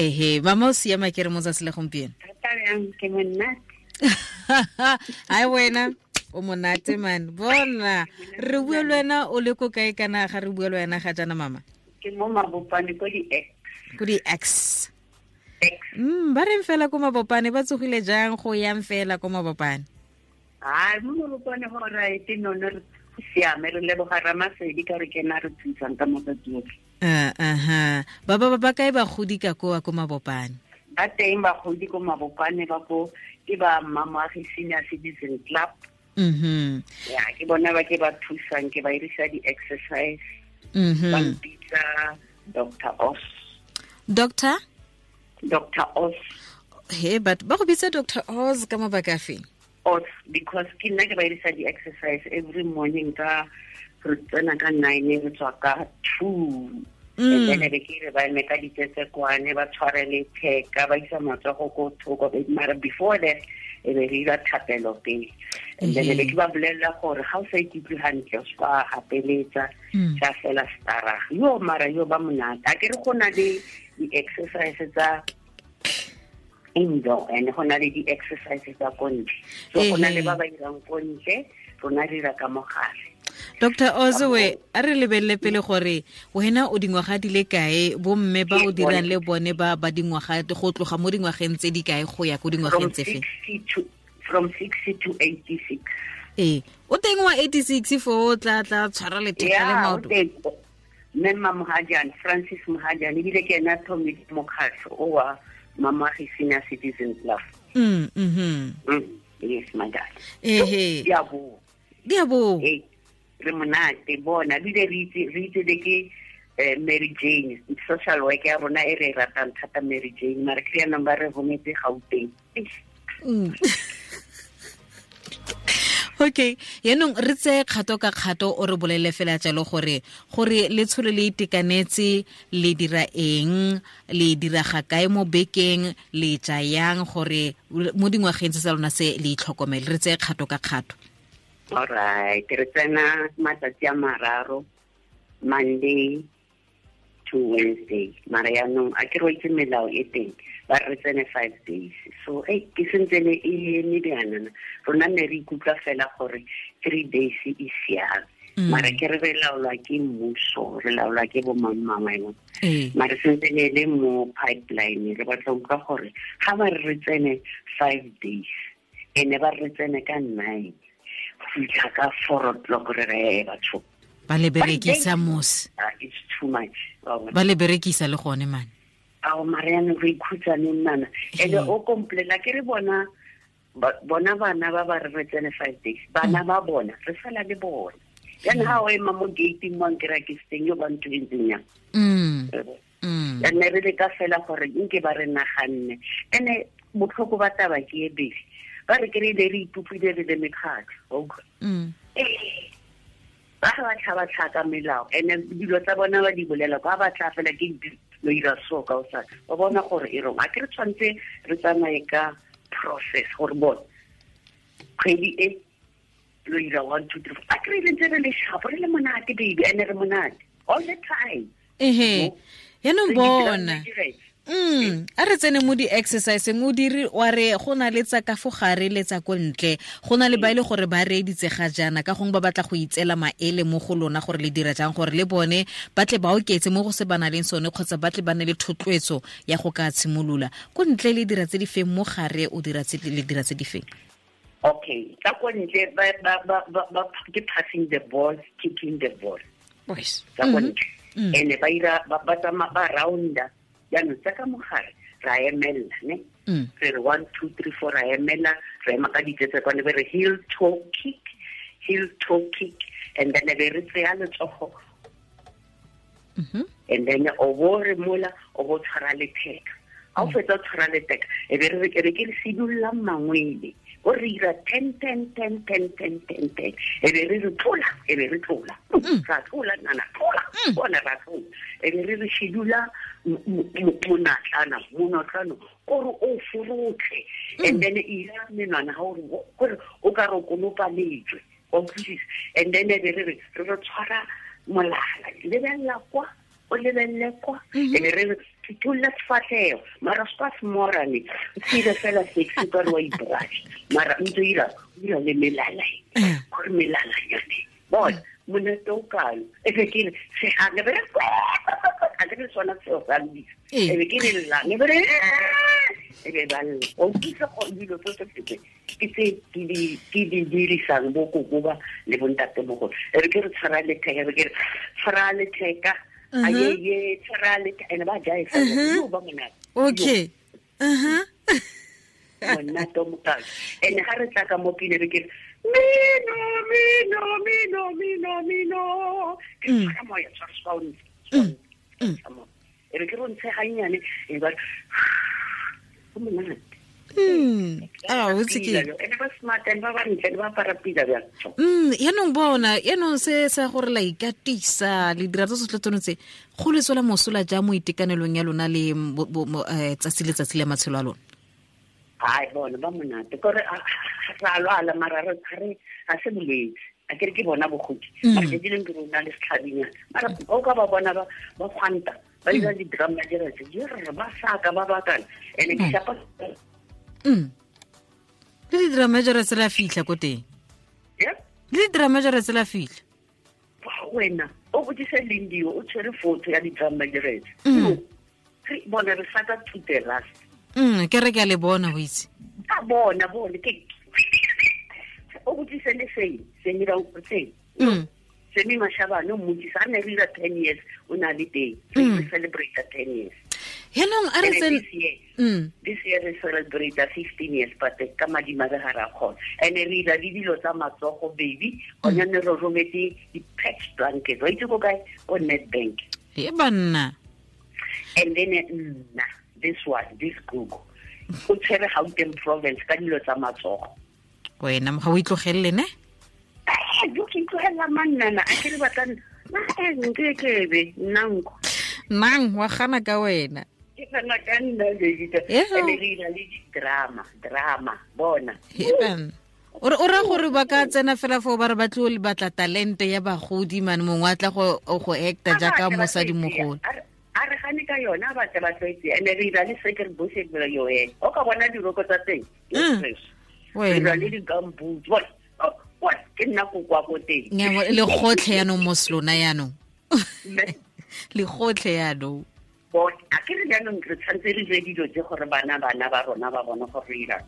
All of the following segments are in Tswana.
Ehe, mama o siama ke re mo tsatsi le gompieno. Thata bjang, ke monate. Ai wena o monate man. Bona, re bua le wena o le ko kae kana ga re bua le wena ga jana mama? Ke mo Mabopane ko di X. Ko di X. Ba reng fela ko Mabopane, ba tsogile jang go yang fela ko Mabopane? Ai, mo Mabopane go right no no re siame, re leboga Ramasedi ka re kena re thusang ka matsatsi otlhe. Aha. Ba ba ba kae bagodi ka koa ko Mabopane? Ba teng bagodi ko Mabopane ba ko ke ba Mmamoagi Senior Citizen Club. Ya, ke bona ba ke ba thusang, ke ba irisa di-exercise. Ba mpitsa Doctor Oz. Doctor? Doctor Oz. He, but ba go bitsa Doctor Oz ka mabaka afe? Oz, because ke nna ke ba irisa di-exercise every morning ka re tsena ka 9, re tswa ka 2. And then be ke re ba eme ka ditsetsekwane, ba tshware letheka, ba isa matsogo ko thoko, mara before that e be re ira thapelo pele. And then be ke ba bolelela gore ga o sa ikutlwe hantle, o se ka gapeletsa, tsa fela stara. Yo mara yo ba monate. A ke re go na le di-exercise tsa indoor and go na le di-exercise tsa ko ntle. So go na le ba ba irang ko ntle, rona re ira ka mogare. Doctor Ozoe, a re lebelele pele gore wena o dingwaga di le kae, bomme ba o dirang le bone ba ba dingwaga go tloga mo dingwageng tse di kae go ya ko dingwageng tse fe? From 60 to 86. Ee, o teng wa 86 fo o tla tla tshwara letheka le maoto. Mme Mma Mohajane, Francis Mohajane, ebile ke ena thomile mokgatlho o wa Mmamoagi Senior Citizen Club. Yes, my dad. Ehe. Di a boa. Di a boa. Ee, re monate bona, ebile re itse le ke Mary Jane, social work ya rona e re e ratang thata Mary Jane, mara ke yanong ba re rometse Gauteng. Okay, yaanong re tseye kgato ka kgato o re bolele fela jalo gore letsholo le itekanetse le dira eng, le dira ga kae mo bekeng, le ja yang gore mo dingwageng tse tsa lona se le itlhokomele, re tseye kgato ka kgato. All right, re tsena matsatsi a mararo, Monday to Wednesday. Mara yaanong a ke re itse melao e teng, ba re tsene 5 days. So ke sentse le e eme bjanana. Rona ne re ikutlwa fela gore 3 days e siame. Mara ke re re laolwa ke mmuso, re laolwa ke bo mang mang wa yona. Mara sentse ne le mo pipeline, re batla utlwa gore ga ba re tsene 5 days, ene ba re tsene ka 9, go fitlha ka 4 o'clock re re batho. Ba le berekisa mos. It's too much. Ba le berekisa le gone man. Ao Mariana re ikhutsa neng nana. Ene o complaina ke re bona bona bana ba ba re tsene 5 days. Bana ba bona re sala le bona. Then ha o ema mo gate mo nkira ke steng yo ba ntho e ntseng yang. Ene re le ka fela gore nke ba re naganne. Ene botlhoko ba taba ke e bele. Ba re ke re le re ipopile re le mekgatlho. Ba ga ba tlhaba tlhaka melao, ene dilo tsa bona ba di bolela kwa ba tla fela ke lo ira so ka o sa ba bona gore e rong. A ke re tshwanetse re tsamaye ka process gore bona kgwedi e lo ira 1 2 3 4. A ke re le ntse re le sharp, re le monate baby, ene re monate all the time. Ehe, yaanong bona. A re tsene mo di-exerciseng, o dire wa re go na le tsa ka fo gare le tsa ko ntle, go na le ba e le gore ba reeditse ga jaana ka gongwe ba batla go itseela maele mo go lona gore le dira jang gore le bone ba tle ba oketse mo go se ba nang le sone kgotsa ba tle ba nne le thotloetso ya go ka tshimolola. Ko ntle le dira tse di feng, mo gare o dira tse le dira tse di feng? Okay, tsa ko ntle ba ke passing the ball, kicking the ball. Boys. Tsa ko ntle. Ene ba ira ba tsamaya ba rounda. Jaanong tsa ka mogare ra emella, ne? Re re 1 2 3 4 ra emella, re ema ka ditsetse kwane, be re heel toe kick, heel toe kick, and then be re tseya letsogo. And then o bo re mola, o bo tshwara letheka. Ha o fetsa o tshwara letheka, e be re re ke re sidulla mangwele. O re ira 10 10 10 10 10 10 10. E be re re tlola, e be re tlola. Ra tlola, nana, tlola. Bona ra tlola. E be re re shidula monatlana, monatlana, kore o forotlhe. And then e ira menwana ha o re, kore o ka re o konopa lejwe. Wa utlwisisa? And then e be re re, re re tshwara molala. Lebella kwa, o lebelle kwa. E be re re, Phuthulla sefatlhego mara se ka semorane o tshile fela sexy ka re wa ibrush mara ntse o ira le melala gore melala yone bona monate o kalo e be ke re segang be re a ke re sona seo sa lebisa e be ke re llang e be re e be ba lla o utlwisa gore dilo tse tse ke tse ke di dirisang bo koko ba le bontatemogolo e re ke re tshwara letheka e be ke re tshwara letheka ayeye tshwara letheka ene ba jae fela ba monate okay monate o mokalo ene ga re tla ka mo pine re ke mino mino mino mino mino ke tshwara moya tshwara sound e re ke re ntshe gannyane e ba go monate. Ene ba smart and ba bantle ba apara pila bjang. Yaanong bona yaanong se sa gore la ikatisa le dira tse tsotlhe tsone tse go le tswela mosola jang mo itekanelong ya lona le tsatsi le tsatsi le matshelo a lona? Ai bona ba monate kore ra lwala mara re ga se bolwetse a kere ke bona bogodi mara ke dileng ke rona le setlhabinyana mara o ka ba bona ba gwanta ba dira di-drum ba dira tse di ba saka ba bakana ene ke shapa le di-drum major tse la fitlha ko teng le di-drum major tse la fitlha wena o botsise Lindiwe o tshwere photo ya di-drum major bona re saka to the last. Ke re ke a le bona o itse a bona bone ke o botsise le seng ra o tseng Semi Mashabane o mmotsisa a ne re ira 10 years o na le teng re celebrate 10 years yaanong a re this year re celebrate 15 years but ka madimabe ga ra kgona and re ira le dilo tsa matsogo baby gone ne re rometse di-patch blanket wa itse ko kae ko Nedbank e banna. And then nna this one this Google o tshwere Gauteng province ka dilo tsa matsogo wena ga o itlogelele ne jo ke itlogelela mannana a ke re batla nkekebe nnanko nang wa gana ka wena ke gana ka nna baby ene re ira le di-drama drama bona o ra gore ba ka tsena fela foo ba re ba tlo batla talente ya bagodi mane mongwe a tla go acta jaaka mosadimogolo a re gane ka yona ba tle ba tlwaetse ene re ira le sekere bose yo ene o ka bona diroko tsa teng re ira le di-gumboot bona ke nna kokwa ko teng le gotlhe yaanong mo selona yaanong le gotlhe yaanong a ke re jaanong re tshwanetse re dire dilo tse gore bana ba rona ba bone gore re irang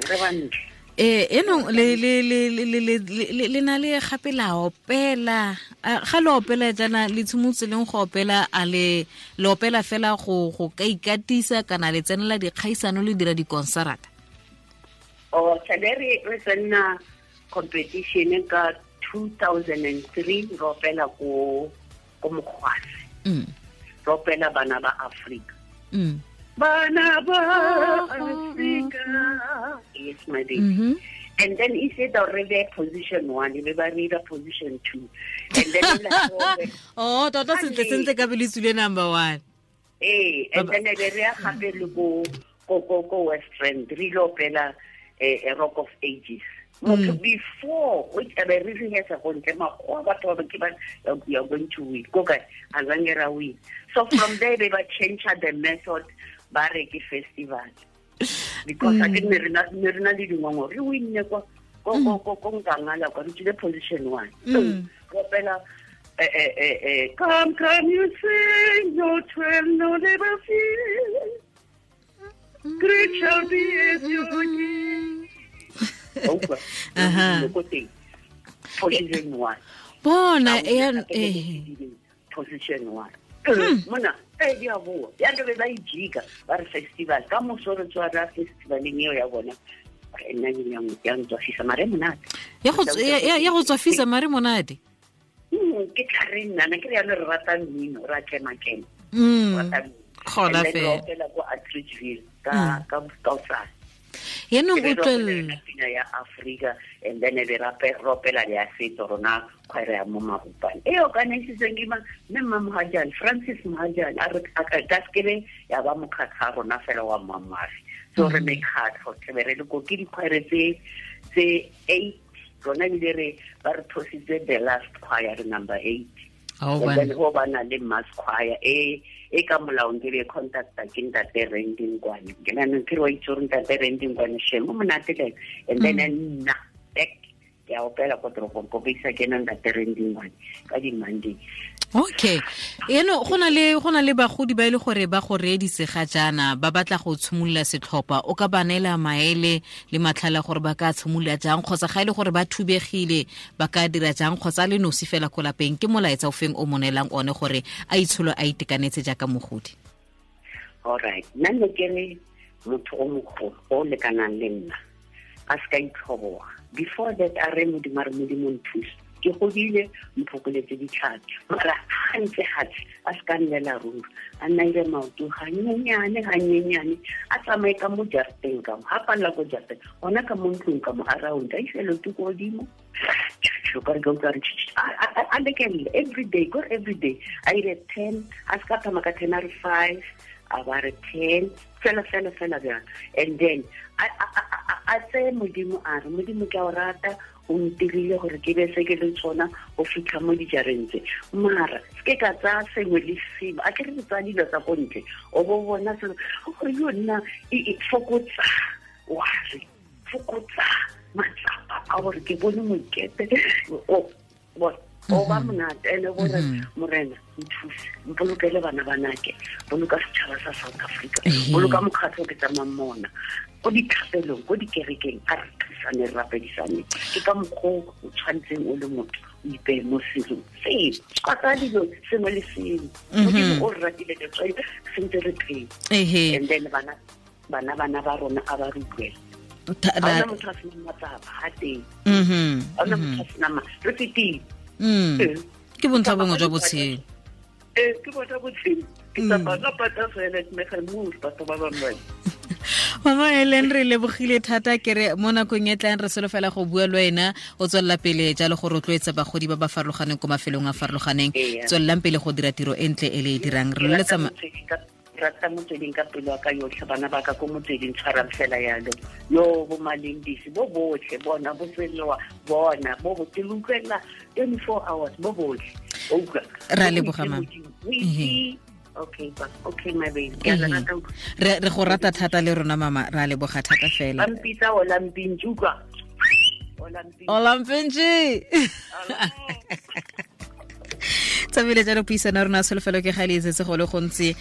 re bantle enong le na le gape la opela ga le opela jaana le tshimotse leng go opela a le opela fela go ka ikatisa kana le tsenela dikgaisano le dira dikonsarata? O tshele re tsena competition ka 2003 re opela ko Mokgwase re opela bana ba Afrika bana ba Afrika yes my baby and then he said already position 1 e be ba re position 2 and then oh tota sentle ka bele tsule number 1 and then e be re ya gape le ko West Rand re lo opela a Rock of Ages motho before which a re rehearsa go ntle makgowa batho ba ke ba you are going to win ko kae a zange ra win. So from there they ba change the method ba re ke festival because a ke ne re na le dingongoro re winne kwa ko Nkangala kwa re tsile position 1 go opela come come you sing no twelve no never feel great shall be as your king. Position 1 bona position 1 mona di a boa ya ke ba ijika ba re festival ka moso re tswa ra festivaleng eo ya bona nna ya ntswafisa mare monate ya go tswafisa mare monate ke tla re nna ke re yana re rata mmino ra kema-kema gona fela ko Atteridgeville ka kaosane yaanong o tlwelela pina ya Africa and then be rapela ya setso rona kgwere ya mo Mabopane e organizitseng ke mme mma Mohajane Francis Mohajane a re ka sekebe ya ba mokgatlho a rona fela wa Mamafi so re mekgatlho tlebe re le ko ke dikgwere tse 8 rona ebile re ba re thositse the last choir re number 8 and then go ba na le mass choir e E ka molaong ke be contacta ke ntate Rending Kwane. Ke nna ke re wa itse gore ntate Rending Kwane shame o monate le and then nna back ke a opela ko toropong ko bisa ke nna ntate Rending Kwane ka di Monday. Okay. Eno go na le bagodi ba ile gore ba go reeditse ga jaana ba batla go tshimolola setlhopha, o ka ba neela maele le matlhala gore ba ka tshimolola jang, kgotsa ga ile gore ba thubegile ba ka dira jang, kgotsa le nosi fela ko lapeng, ke molaetsa o feng o mo neelang one gore a itsholo a itekanetse jaaka mogodi? All right. Nna ne ke re motho o mogolo o lekanang le nna a se ka itlhoboga. Before that a re Modimo a re Modimo nthuse, ke godile mphokoletse ditlhapi, mara ga ntse gatse a se ka nnela ruri, a nna ire maoto ganyenyane ganyenyane, a tsamaye ka mo jarateng ka mo, ga palela ko jarateng gona ka mo ntlong ka mo around, a ise leoto ko godimo a lekelele every day, kore every day a ire 10, a se ka thoma ka 10 a re 5, a ba re 10, fela fela fela bjang. And then a tseye Modimo a re Modimo ke a o rata, o ntirile gore ke be se ke le tsona go fitlha mo dijareng tse, mara se ke ka tsaya sengwe le sengwe, a ke re tsaya dilo tsa ko ntle o bo bona selo gore yo nna e fokotsa wa re fokotsa matsapa a gore ke bone mokete o ba monate ene gore Morena nthuse, mpolokele bana banake, boloka setšhaba sa South Africa, boloka mokgatlho ke tsamayng mona ko dithapelong ko dikerekeng, a re thusane re rapedisane. Ke ka mokgwa o tshwanetseng o le motho o ipeye mo selong seo, ka tsaya dilo sengwe le sengwe. Modimo o re ratile letswai sentse re phela. And then bana ba rona a ba re utlwela. Ga ona motho a senang matsapa ga teng, ga ona motho a senang re fetile. Ke bontlha bongwe jwa botshelo. Ke bontlha botshelo. Ke tsamaya ka pata fela ke mega mo batho ba bangwe. Mama Helen, re lebogile thata, ke re mo nakong e tlang re solofela go bua le wena, o tswelela pele jalo go rotloetsa bagodi ba ba farologaneng ko mafelong a farologaneng. Tswelelang pele go dira tiro e ntle e le e dirang. Re loletsa rata motsweding ka pelo ka yotlhe, bana ba ka ko motsweding tshwarang fela yalo, yo bo Malindisi bo botlhe bona bo tselewa bona bo bo ke utlwela 24 hours bo botlhe. O utlwa ra leboga mama. Okay, okay my baby. Re go rata thata le rona mama, ra leboga thata fela. Ba mpitsa Olampintsi, utlwa. Olampintsi. Tsabile jalo puisano rona solofelo ke ga le etsetse go le gontsi.